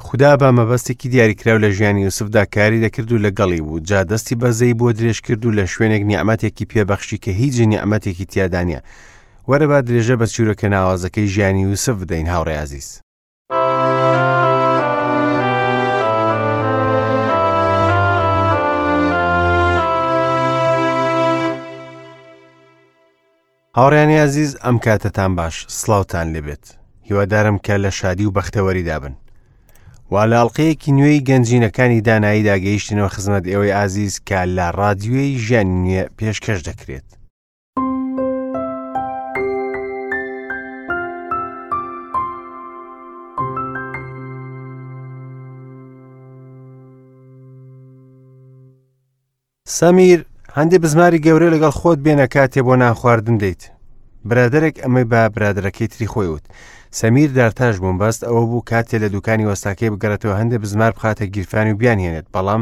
خودا بە مەبەستێکی دیاریکراو لە ژیانی یوسفدا کاری دەکرد و لەگەڵی بوو، جا دەستی بەزەیی بۆ درێژ کرد و لە شوێنێک نیعمەتێکی پێ بەخشی کە هیچ نیعمەتێکی تیادا نییە. وەرە با درێژە بە چیرۆکە ناوازەکەی ژیانی یوسف بدەین هاوڕێ ئازیز. هاوڕێیانی ئازیز ئەم کاتەتان باش سڵاوتان لێبێت هیوادارم کە لە شادی و بەختەوەریدا بن وا لە ئەڵلقەیەکی نوێی گەنجینەکانی داناییدا گەیشتنەوە خزمەت ئێوەی ئازیز کە لە ڕادیۆی ژیانی نوێ پێشکەش دەکرێت. سەمیر، هەندێ بزماری گەورە لەگەڵ خۆت بێنە کاتێ بۆ نان خواردن دێیت. برادەرێک ئەمەی بە برادەرەکەی تری خۆی وت. سەمیر دارتاش بووم بەست ئەوە بوو کاتێ لە دوکانی وەستاکەی بگەڕێتەوە هەندێ بزمار بخاتە گیرفانی و بیانهێنێت بەڵام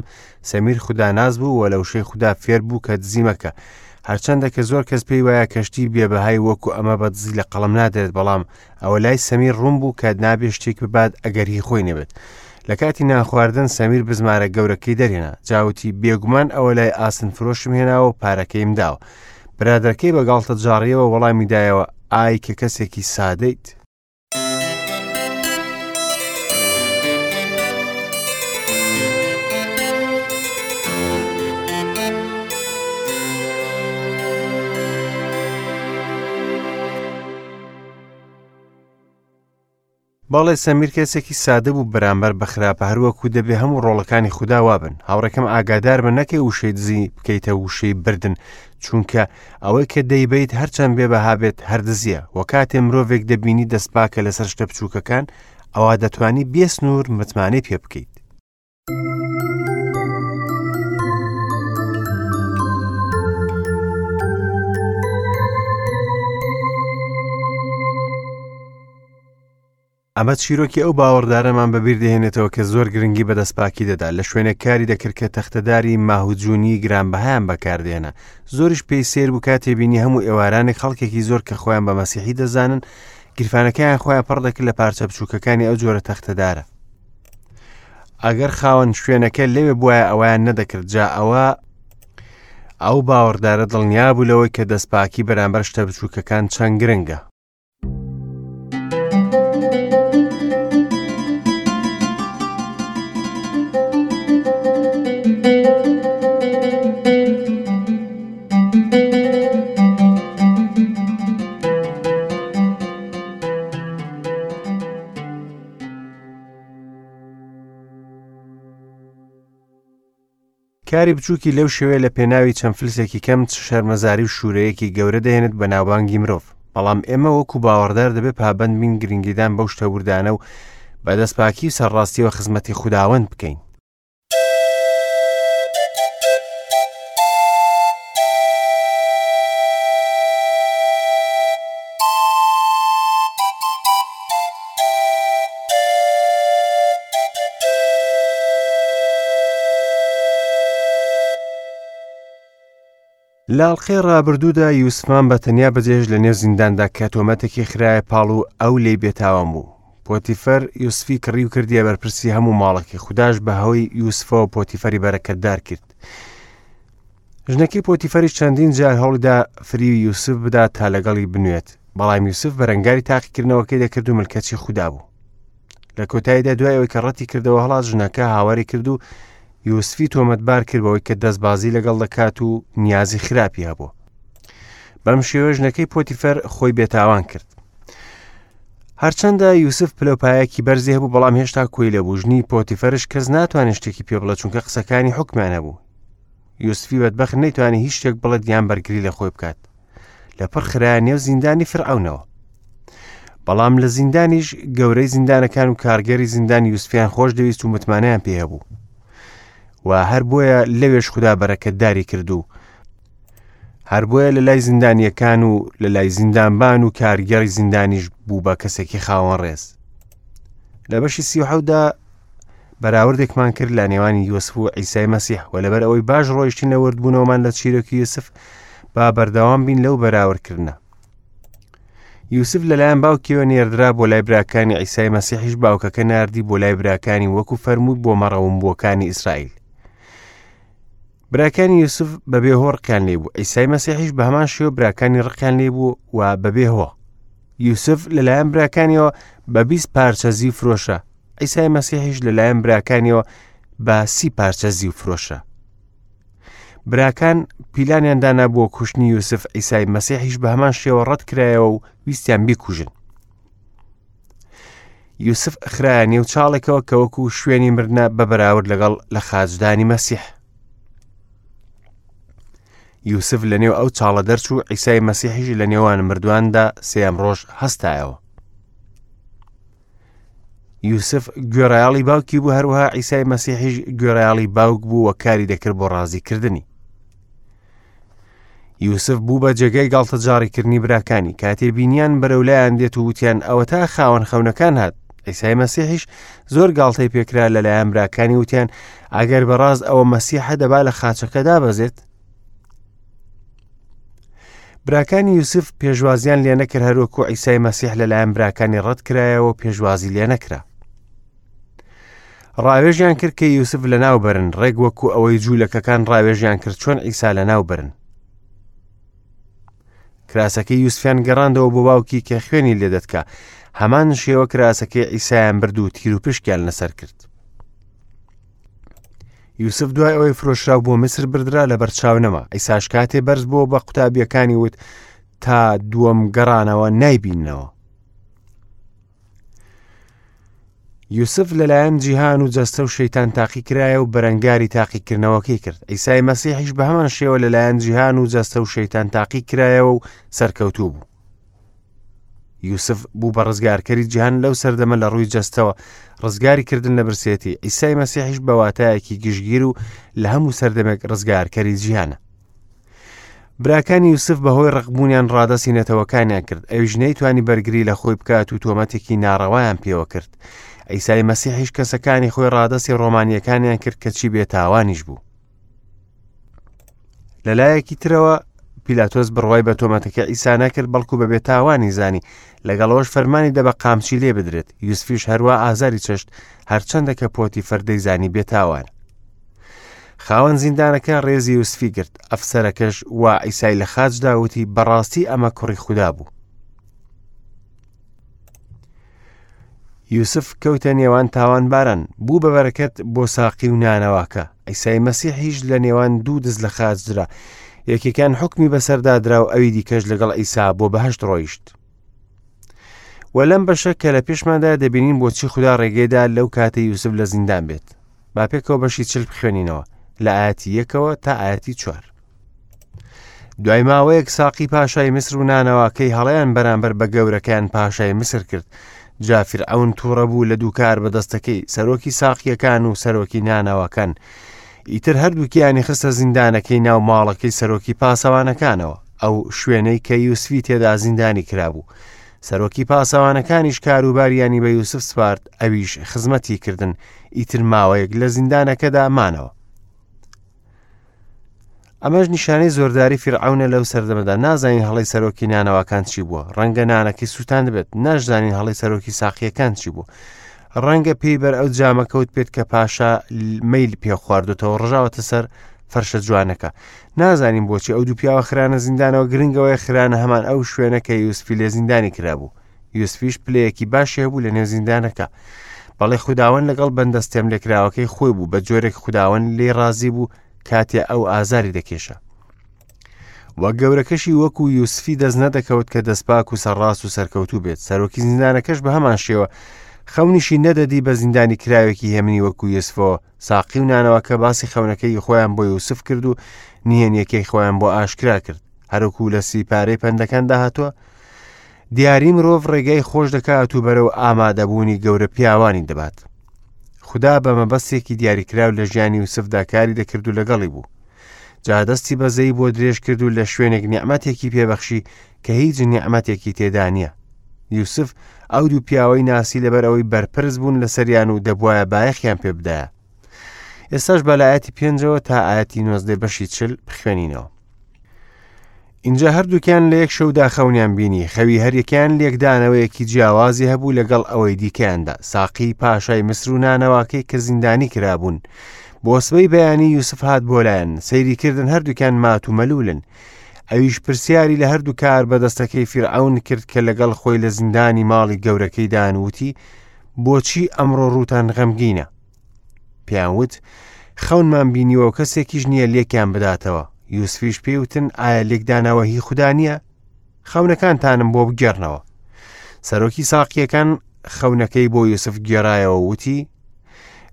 سەمیر خوداناس بوو و لە وشەی خودا فێر بوو کە دزی مەکە. هەرچەندە کە زۆر کەس پێی وایە کەشتی بێبەهای وەکو ئەمە بە دزی لە قەڵەم نادرێت بەڵام ئەوە لای سەمیر ڕوون بوو کە نابێ شتێک ببات ئەگەر هی خۆی نەبێت. لە کاتی نانخواردن سەمیر بزمارە گەورەکەی دەرهێنا. جاوتی بێگومان ئەوە لای ئاسن فرۆشم هێناوە و پارەکەیم داوە. برادەرەکەی بە گاڵتەجاڕیەوە وەڵامی دایەوە ئای کە کەسێکی سادەیت. بەڵێ سەمیر کەسێکی سادە بوو بەرامبەر بە خراپە هەروەکو دەبێ هەموو ڕۆڵەکانی خودا وابن هاوڕێکەم ئاگادار بە نەکەی وشەی دزی بکەیتە وشەی بردن چونکە ئەوەی کە دەیبەیت هەرچەند بێ بەها بێت هەر دزیە وە کاتێ مرۆڤێک دەبینی دەستپاکە لەسەر شتە بچووکەکان ئەوا دەتوانی بێ سنوور متمانەی پێ بکەیت. ئەمە چیرۆکی ئەو باوەڕدارەمان بەبیر دەهێنێتەوە کە زۆر گرنگی بە دەستپاکی دەدا، لە شوێنێک کاری دەکرد کە تەختەداری ماهوجونی گرانبەهایان بەکاردێنا. زۆریش پێی سەیر بوو کاتێ بینی هەموو ئێوارانێک خەڵکێکی زۆر کە خۆیان بە مەسیحی دەزانن، گیرفانەکەیان خۆیان پڕ دەکرد لە پارچە بچووکەکانی ئەو جۆرە تەختەدارە. ئەگەر خاوەن شوێنەکە لەوێ بوایە ئەوەیان نەدەکرد، جا ئەوە ئەو باوەڕدارە دڵنیا بوو لەوەی کە دەستپاکی بەرامبەر شتە بچووکەکان چەند گرنگە. کاری بچووکی لەو شێوەیە لە پێناوی چەند فلسێکی کەم چ شەرمەزاری و شوورەیەکی گەورە دەهێنێت بە ناوبانگی مرۆڤ بەڵام ئێمە وەکو باوەڕدار دەبێت پابەند بین گرنگیدان بەو شتە وردانە و بە دەستپاکی و سەرڕاستیەوە خزمەتی خوداوەند بکەین. لە ئەڵقەی ڕابردوودا یوسفمان بە تەنیا بەجێهێشت لە نێو زینداندا کە تۆمەتێکی خرایە پاڵ و ئەو لێی بێتاوان بوو. پۆتیفەر یوسفی کڕی و کردیە بەرپرسی هەموو ماڵەکەی، خوداش بە هۆی یوسفەوە پۆتیفەری بەرەکەتدار کرد. ژنەکەی پۆتیفەریش چەندین جار هەوڵیدا فریوی یوسف بدات تا لەگەڵی بنوێت، بەڵام یوسف بەرەنگاری تاقیکردنەوەکەی دەکرد و ملکەچی خودا بوو. لە کۆتاییدا دوای ئەوەی کە ڕەتی کردەوە هەڵات ژنەکە هاواری کرد و یوسفی تۆمەتبار کرد بەوەی کە دەستبازی لەگەڵ دەکات و نیازی خراپی هەبوو. بەم شێوە ژنەکەی پۆتیفەر خۆی بێتاوان کرد. هەرچەندە یوسف پلەپایەکی بەرزی هەبوو بەڵام هێشتا کۆیلە بوو ژنی پۆتیفەرش کەس ناتوانێت شتێکی پێ بڵێ چونکە قسەکانی حکمیان هەبوو یوسفی بەدبەخت نەیتوانی هیچ شتێک بڵێت یان بەرگری لە خۆی بکات لە پڕ خرایە نێو زیندانی فرعونەوە بەڵام لە زیندانیش گەورەی زیندانەکان و کارگەری زیندان یوسفیان خۆش دەویست و متمانەیان پێ هەبوو و هەر بۆیە لەوێش خودا بەرەکەتداری کرد و هەر بۆیە لە لای زیندانیەکان و لە لای زیندانبان و کارگێڕی زیندانیش بوو بە کەسێکی خاوەن ڕێز لە بەشی سیحەودا بەراوردێکمان کرد لە نێوانی یوسف و عیسای مەسیح و لەبەر ئەوەی باش ڕۆیشتین لە وردبوونەوەمان لە چیرۆکی یوسف با بەردەوام بین لەو بەراوردکردنە. یوسف لەلایەن باوکیەوە نێردرا بۆ لای براکانی عیسای مەسیحیش باوکەکە ناردی بۆ لای براکانی وەکو فەرمووی بۆ مەڕەومبووەکانی ئیسرائیل. براکانی یوسف بەبێ هۆ ڕقیان لێ بوو عیسای مەسیحیش بە هەمان شێوە براکانی ڕقیان لێ بوو و بەبێ هۆ یوسف لەلایەن براکانیەوە بە 20 پارچە زیو فرۆشە عیسای مەسیحیش لەلایەن براکانیەوە بە سی پارچە زیو فرۆشە براکان پیلانیان دانا بۆ کوشتنی یوسف عیسای مەسیحیش بە هەمان شێوە ڕەت کرایەوە و ویستیان بیکوژن یوسف خرایە نێو چاڵێکەوە کە وەکو شوێنی مردە بە بەراورد لەگەڵ لە خاچدانی مەسیح یوسف لە نێو ئەو چاڵە دەرچوو عیسای مەسیحیش لە نێوان مردواندا سێم ڕۆژ هەستایەوە یوسف گوێڕایەڵی باوکی بوو هەروەها عیسای مەسیحیش گوێڕایەڵی باوک بوو و کاری دەکرد بۆ ڕازیکردنی یوسف بوو بە جێگای گاڵتەجاڕیکردنی براکانی کاتێ بینیان بەرەولایان دێت و وتیان ئەوەتا خاوەن خەونەکان هات عیسای مەسیحیش زۆر گاڵتەی پێکرا لەلایەن براکانی وتیان ئەگەر بەڕاست ئەوە مەسیحە دەبا لە خاچەکە دابەزێت براکانی یوسف پێشوازیان لێ نەکرد هەروەکو عیسای مەسیح لەلایەن براکانی ڕەت کرایەوە پێشوازی لێ نەکرا ڕاوێژیان کرد کە یوسف لەناو بەرن ڕێک وەکو ئەوەی جوولەکەکان ڕاوێژیان کرد چۆن عیسا لەناو بەرن کراسەکەی یوسفیان گەڕاندەوە بۆ باوکی کە خوێنی لێدەتکا هەمان شێوە کراسەکەی عیسایان برد و تیروپشکیان لەسەر کرد یوسف دوای ئەوەی فرۆشرا بۆ میسر بردرا لە بەرچاو نەما ئیساش کاتێ بەرز بۆ بە قوتابیەکانی وت تا دووەم گەڕانەوە نایبیننەوە یوسف لەلایەن جیهان و جەستە و شەیتان تاقی کرایە و بەرەنگاری تاقیکردنەوەکەی کرد ئیسای مەسیحیش بە هەمان شێوە لەلایەن جیهان و جەستە و شەیتان تاقی کرایەوە و سەرکەوتوو بوو یوسف بوو بە ڕزگارکەری جیهان لەو سەردەمە لە ڕووی جەستەوە ڕزگاری کردن لە برسێتی ئیسای مەسیحیش بە واتایەکی گشتگیر و لە هەموو سەردەمێک ڕزگارکەری جیهانە براکانی یوسف بەهۆی ڕقبوونیان ڕادەستی نەتەوەکانیان کرد ئەویش نەیتوانی بەرگری لە خۆی بکات و تۆمەتێکی ناڕەوایان پێوە کرد ئیسای مەسیحیش کەسەکانی خۆی ڕادەستی ڕۆمانیەکانیان کرد کەچی بێتاوانیش بوو لەلایەکی ترەوە پیلاتۆس بڕوای بە تۆمەتەکە ئیسا نەکرد بەڵکو بە بێتاوانی زانی لەگەڵەوەش فەرمانی دە بە قامچی لێ بدرێت یوسفیش هەروە ئازاری چەشت هەرچەندە کە پۆتی فەردەی زانی بێتاوان خاوەن زیندانەکە ڕێزی یوسفی گرت ئەفسەرەکەش وا ئیسای لە خاچدا وتی بەڕاستی ئەمە کوڕی خودا بوو یوسف کەوتە نێوان تاوانباران بوو بە بەرەکەت بۆ ساقی و نانەواکە ئیسای مەسیحیش لە نێوان دوو دز لە خاچ درا یەکێکان حکمی بەسەردا درا و ئەوی دیکەش لەگەڵ ئیسا بۆ بەهشت ڕۆیشت و لەم بەشە کە لە پێشماندا دەبینین بۆچی خودا ڕێگەیدا لەو کاتە یوسف لە زیندان بێت با پێکەوە بەشی چل بخوێنینەوە لە ئاەتی یەکەوە تا ئاەتی چوار دوای ماوەیەک ساقی پاشای میسر و نانەواکەی هەڵەیان بەرامبەر بە گەورەکەیان پاشای میسر کرد جا فیرعەون تووڕە بوو لە دووکار بەدەستەکەی سەرۆکی ساقیەکان و سەرۆکی نانەواکان ئیتر هەردووکیانی خستە زیندانەکەی ناو ماڵەکەی سەرۆکی پاسەوانەکانەوە ئەو شوێنەی کە یوسفی تێدا زیندانی کرابوو سەرۆکی پاسەوانەکانیش کاروباریانی بە یوسف سپارد ئەویش خزمەتی کردن ئیتر ماوەیەک لە زیندانەکەدا مانەوە ئەمەش نیشانەی زۆرداری فیرعەونە لەو سەردەمەدا نازانین هەڵی سەرۆکی نانەواکان چی بووە ڕەنگە نانەکەی سووتان بێت ناشزانین هەڵی سەرۆکی ساقیەکان چی بوو ڕەنگە پێی بەر ئەو جامە کەوت پێت کە پاشا میل پێ خواردوتەوە ڕژاوەتە سەر فەرشە جوانەکە نازانین بۆچی ئەو دوو پیاوە خرانە زیندانەوە گرنگەوەی خرانە هەمان ئەو شوێنە کە یوسفی لێ زیندانی کرابوو یوسفیش پلەیەکی باشی هەبوو لە نێو زیندانەکە بەڵێ خوداوەند لەگەڵ بەندە ستێملێکراوەکەی خۆی بوو بە جۆرێک خوداوەند لێی ڕازی بوو کاتێ ئەو ئازاری دەکێشا وە گەورەکەشی وەکو یوسفی دەست نەدەکەوت کە دەستپاک و سەرڕاست و سەرکەوتوو بێت سەرۆکی زیندانەکەش بە هەمان شێوە خەونیشی نەدەدی بە زیندانی کراوێکی هێمنی وەکو یوسفەوە ساقی و نانەوەکە باسی خەونەکەی خۆیان بۆ یوسف کرد و نهێنیەکەی خۆیان بۆ ئاشکرا کرد هەروکو لە سیپارەی پەندەکاندا هاتووە دیاری مرۆڤ ڕێگای خۆش دەکات و بەرەو ئامادەبوونی گەورە پیاوانی دەبات. خودا بە مەبەستێکی دیاریکراو لە ژیانی یوسفدا کاری دەکرد و لەگەڵی بوو. جا دەستی بەزەی بۆ درێژ کرد و لە شوێنێک نیعمەتێکی پێبەخشی کە هیچ نیعمەتێکی تێدا نییە. یوسف ئەو دوو پیاوەی ناسی لەبەر ئەوەی بەرپرس بوون لەسەریان و دەبوایە بایەخیان پێ بدایە. ئێستاش بە لە ئاەتی پێنجەوە تا ئاەتی نۆزدەی بەشی چل بخوێنینەوە. ئینجا هەردووکیان لە یەک شەودا خەونیان بینی، خەوی هەریەکەیان لێکدانەوەیەکی جیاوازی هەبوو لەگەڵ ئەوەی دیکەیاندا، ساقیی پاشای میسر و نانەواکەی کە زیندانی کرابوون. بۆ سبەی بەیانی یوسف هات بۆ لایان، سەیری کردن هەردووکیان مات و مەلوولن. ئەویش پرسیاری لە هەردوو کاربەدەستەکەی فیرعەون کرد کە لەگەڵ خۆی لە زیندانی ماڵی گەورەکەیدان وتی، بۆچی ئەمڕۆ ڕووتان غەمگینە؟ پێیان وت، خەونمان بینیوە و کەسێکیش نییە لێکیان بداتەوە. یوسفیش پێی وتن، ئایا لێکدانەوە هی خودا نییە؟ خەونەکانتانم بۆ بگێڕنەوە. سەرۆکی ساقییەکان خەونەکەی بۆ یوسف گێڕایەوە وتی،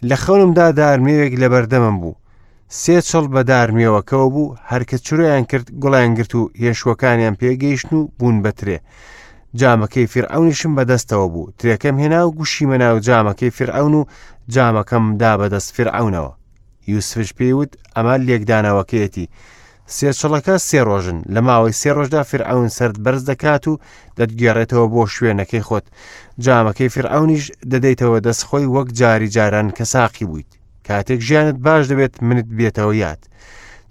لە خەونمدا دارمێوێک لەبەردەمم بوو. سێ چڵ بە دارمێوەکەوە بوو، هەرکە چرۆیان کرد گوڵیان گرت و هێشوەکانیان پێگەیشتن و بوون بە ترێ. جامەکەی فیرعەونیشم بەدەستەوە بوو، ترێکەم هێنا و گوشیمە ناو جامەکەی فیرعەون و جامەکەم دا بەدەست فیرعەونەوە. یوسفش پێی وت، ئەمە لێکدانەوەکەیەتی. سێ چڵەکە سێ ڕۆژن، لە ماوەی سێ ڕۆژدا فیرعەون سەرت بەرز دەکات و دەتگێڕێتەوە بۆ شوێنەکەی خۆت. جامەکەی فیرعەونیش دەدەیتەوە دەست خۆی وەک جاری جاران کە ساقی بوویت. کاتێک ژیانت باش دەبێت منت بێتەوە یاد.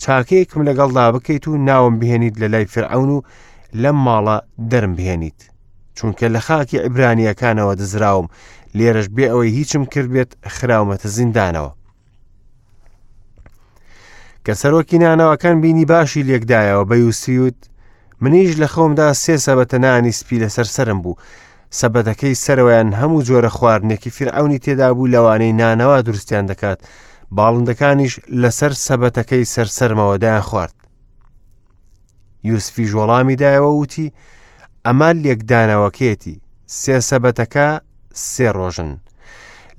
چاکەیەکم لەگەڵدا بکەیت و ناوم بهێنیت لە لای فرعون و لەم ماڵە دەرم بهێنیت چونکە لە خاکی عیبرانیەکانەوە دزراوم لێرەش بێ ئەوەی هیچم کرد بێت خراومەتە زیندانەوە کە سەرۆکی نانەوەکان بینی باشی لێکدایەوە بە یوسفیوت منیش لە خەومدا سێ سەبەتە نانی سپی لەسەر سرم بوو سەبەتەکەی سەرەوەیان هەموو جۆرە خواردنێکی فیرعەونی تێدا بوو لەوانەی نانەوا دروستیان دەکات، باڵندەکانیش لەسەر سەبەتەکەی سەر سەرمەوە دایان خوارد. یوسفیش وەڵامی دایەوە وتی، ئەمە لێکدانەوەکەیەتی، سێ سەبەتەکە سێ ڕۆژن.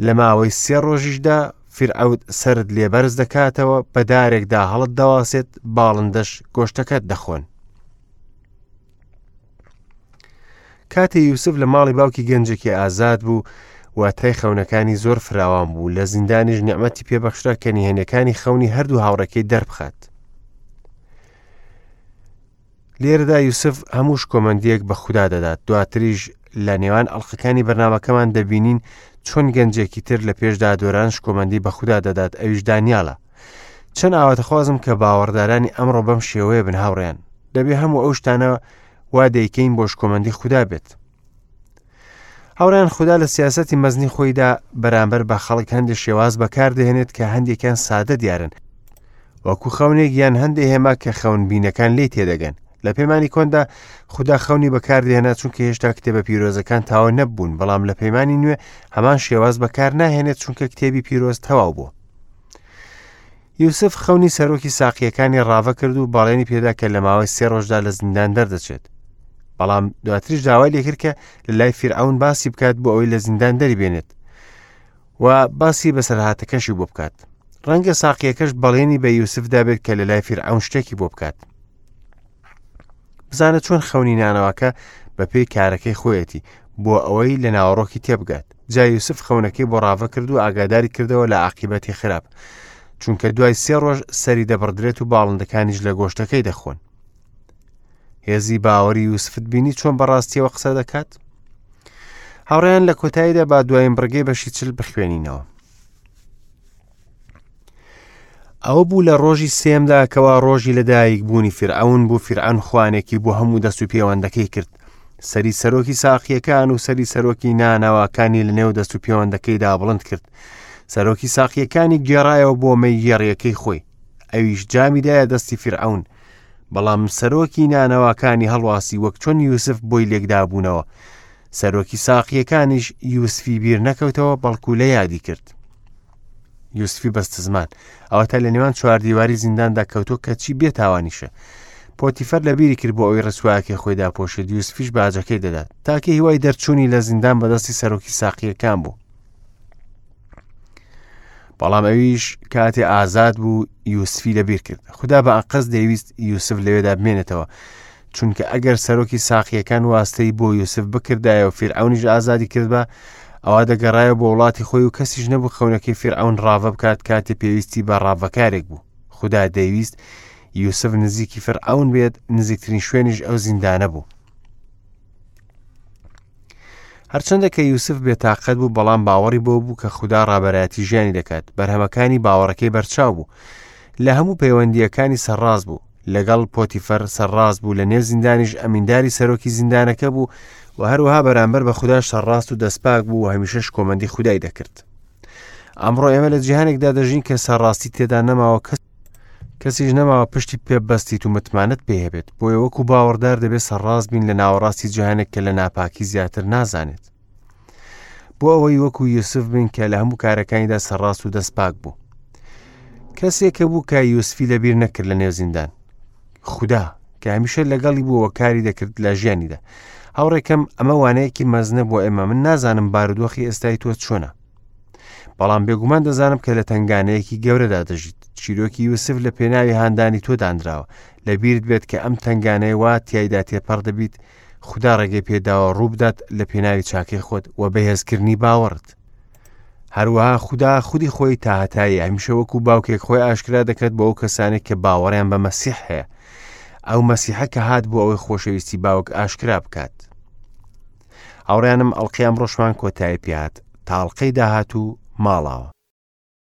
لە ماوەی سێ ڕۆژیشدا فیرعەوت سەرت لێ بەرز دەکاتەوە، بە دارێکدا هەڵت دەواسێت، باڵندەش گۆشتەکەت دەخۆن. کاتێ یوسف لە ماڵی باوکی گەنجێکی ئازاد بوو واتای خەونەکانی زۆر فراوان بوو لە زیندانیش نیعمەتی پێبەخشرا کە نهێنەکانی خەونی هەردوو هاوڕێکەی دەربخات لێرەدا یوسف هەموو شکۆمەندیەک بە خودا دەدات دواتریش لە نێوان ئەڵلقەکانی بەرنمەکەمان دەبینین چۆن گەنجێکی تر لە پێشدا دۆران شکۆمەندی بە خودا دەدات ئەویش دانیالە چەند ئاواتەخوازم کە باوەڕدارانی ئەمڕۆ بەم شێوەیە بن هاوڕێیان دەبێ هەموو ئەو شتانە وا دەیکەین بۆ شکۆمەندی خودا بێت هاوڕیان خودا لە سیاستی مەزنی خۆیدا بەرامبەر بە خەڵک هەندێک شێواز بەکاردەهێنێت کە هەندێکیان سادە دیارن وەکو خەونێک یان هەندێک هێما کە خەونبینەکان لی تێدەگەن لە پەیمانی کۆندا خودا خەونی بەکاردێنا چونکە هێشتا کتێبە پیرۆزەکان تاوە نەبوون بەڵام لە پەیمانی نوێ هەمان شێواز بەکار ناهێنێت چونکە کتێبی پیرۆز تەواو بوو یوسف خەونی سەرۆکی ساقییەکانی ڕاڤە کرد و بەڵێنی پێدا کە لە ماوەی سێ ڕۆژدا لە زیندان دەردەچێت. بەڵام دواتریش داوای لێکرد کە لە لای فیرعەون باسی بکات بۆ ئەوەی لە زیندان دەری بێنێت و باسی بەسەرهاتەکەشی بۆ بکات. ڕەنگە ساقیەکەش بەڵێنی بە یوسف دابێت کە لە لای فیرعەون شتێکی بۆ بکات. بزانە چۆن خەونی نانەواکە بە پێی کارەکەی خۆیەتی بۆ ئەوەی لە ناوەڕۆکی تێبگات جا یوسف خەونەکەی بۆ ڕاڤە کرد و ئاگاداری کردەوە لە عاقیبەتی خراپ چونکە دوای سێ ڕۆژ سەری دەبڕدرێت و باڵندەکانیش لە گۆشتەکەی دەخۆن هێزی باوەری یوسفت بینی چۆن بەڕاستیەوە قسە دەکات هاوڕیان لە کۆتاییدا با دوایین بڕگەی بەشی چل بخوێنینەوە ئەوە بوو لە ڕۆژی سێمدا کەوا ڕۆژی لەدایک بوونی فیرعەون بوو فیرعەون خوانێکی بۆ هەموو دەست و پێوەندەکەی کرد سەری سەرۆکی ساقیەکان و سەری سەرۆکی نانەواکانی لە نێو دەست و پێوەندەکەیدا بڵند کرد سەرۆکی ساقیەکانی گێڕایەوە بۆ مەی گێڕیەکەی خۆی ئەویش جامی دایە دەستی فیرعەون بەڵام سەرۆکی نانەواکانی هەڵواسی وەک چۆن یوسف بۆی لێکدابوونەوە سەرۆکی ساقیەکانیش یوسفی بیر نەکەوتەوە بەڵکو لە یادی کرد یوسفی بەستزمان ئەوەتا لە نێوان چوار دیواری زینداندا کەوتۆ کەچی بێتاوانیشە پۆتیفەر لە بیری کرد بۆ ئەوی ڕسواکەی خۆی داپۆشێت یوسفیش باجەکەی دەدات تاکە هیوای دەرچوونی لە زیندان بەدەستی سەرۆکی ساقیەکان بوو بەڵام ئەویش کاتێ ئازاد بوو یوسفی لەبیر کرد خدا بە ئەقەز دەیویست یوسف لەوێدا بمێنێتەوە چونکە ئەگەر سەرۆکی ساقیەکان واستەی بۆ یوسف بکردایە و فیرعەونیش ئازادی کردبا ئەوا دەگەڕایەوە بۆ وڵاتی خۆی و کەسیش نەبوو خەونەکەی فیرعەون ڕاڤە بکات کاتێ پێویستی بە ڕاڤەکارێک بوو خودا دەیویست یوسف نزیکی فرعون بێت نزیکترین شوێنیش ئەو زیندانە بوو هەرچەندە کە یوسف بێتاقەت بوو بەڵام باوەڕی بۆ بوو کە خودا ڕابەرایەتی ژیانی دەکات بەرهەمەکانی باوەڕەکەی بەرچاو بوو لە هەموو پەیوەندیەکانی سەرڕاست بوو. لەگەڵ پۆتیفەر سەرڕاست بوو لە نێو زیندانیش ئەمینداری سەرۆکی زیندانەکە بوو و هەروەها بەرامبەر بە خوداش سەرڕاست و دەستپاک بوو و هەمیشە شکۆمەندی خودای دەکرد. ئەمڕۆ ئێمە لە جیهانێکدا دەژین کە سەرڕاستی تێدا نەماوە کەس کەسیش نەماوە پشتی پێ بەستیت و متمانەت پێ هەبێت بۆیە وەکو باوەڕدار دەبێت سەرڕاست بین لە ناوەڕاستی جیهانێک کە لە ناپاکی زیاتر نازانێت بۆ ئەوەی وەکو یوسف بین کە لە هەموو کارەکانیدا سەرڕاست و دەستپاک بوو کەسێکە بوو کە یوسفی لەبیر نەکرد لە نێو زیندان خودا کە هەمیشە لەگەڵی بووەوە کاری دەکرد لە ژیانیدا هاوڕێکەم ئەمە وانەیەکی مەزنە بۆ ئێمە من نازانم بارودۆخی ئێستای تۆ چۆنە بەڵام بێگومان دەزانم کە لە تنگانەیەکی گەورەدا دەژیت چیرۆکی یوسف لە پێناوی هاندانی تۆ دانراوە لە بیرت بێت کە ئەم تنگانەیە وا تایدا تێپەڕ دەبیت خودا ڕێگەی پێداوە ڕووبدات لە پێناوی چاکەی خۆت و بەهێزکردنی باوەڕت. هەروەها خودا خودی خۆی تاهەتایی هەمیشە وەکو باوکێک خۆی ئاشکرا دەکات بۆ ئەو کەسانێک کە باوەڕیان بە مەسیح هەیە. ئەو مەسیحە کە هات بۆ ئەوەی خۆشەویستی باوک ئاشکرا بکات. هاوڕیانم ئەڵقەی ئەمڕۆشمان کۆتایی پێهات تاڵقەی داهاتوو ماڵاوە.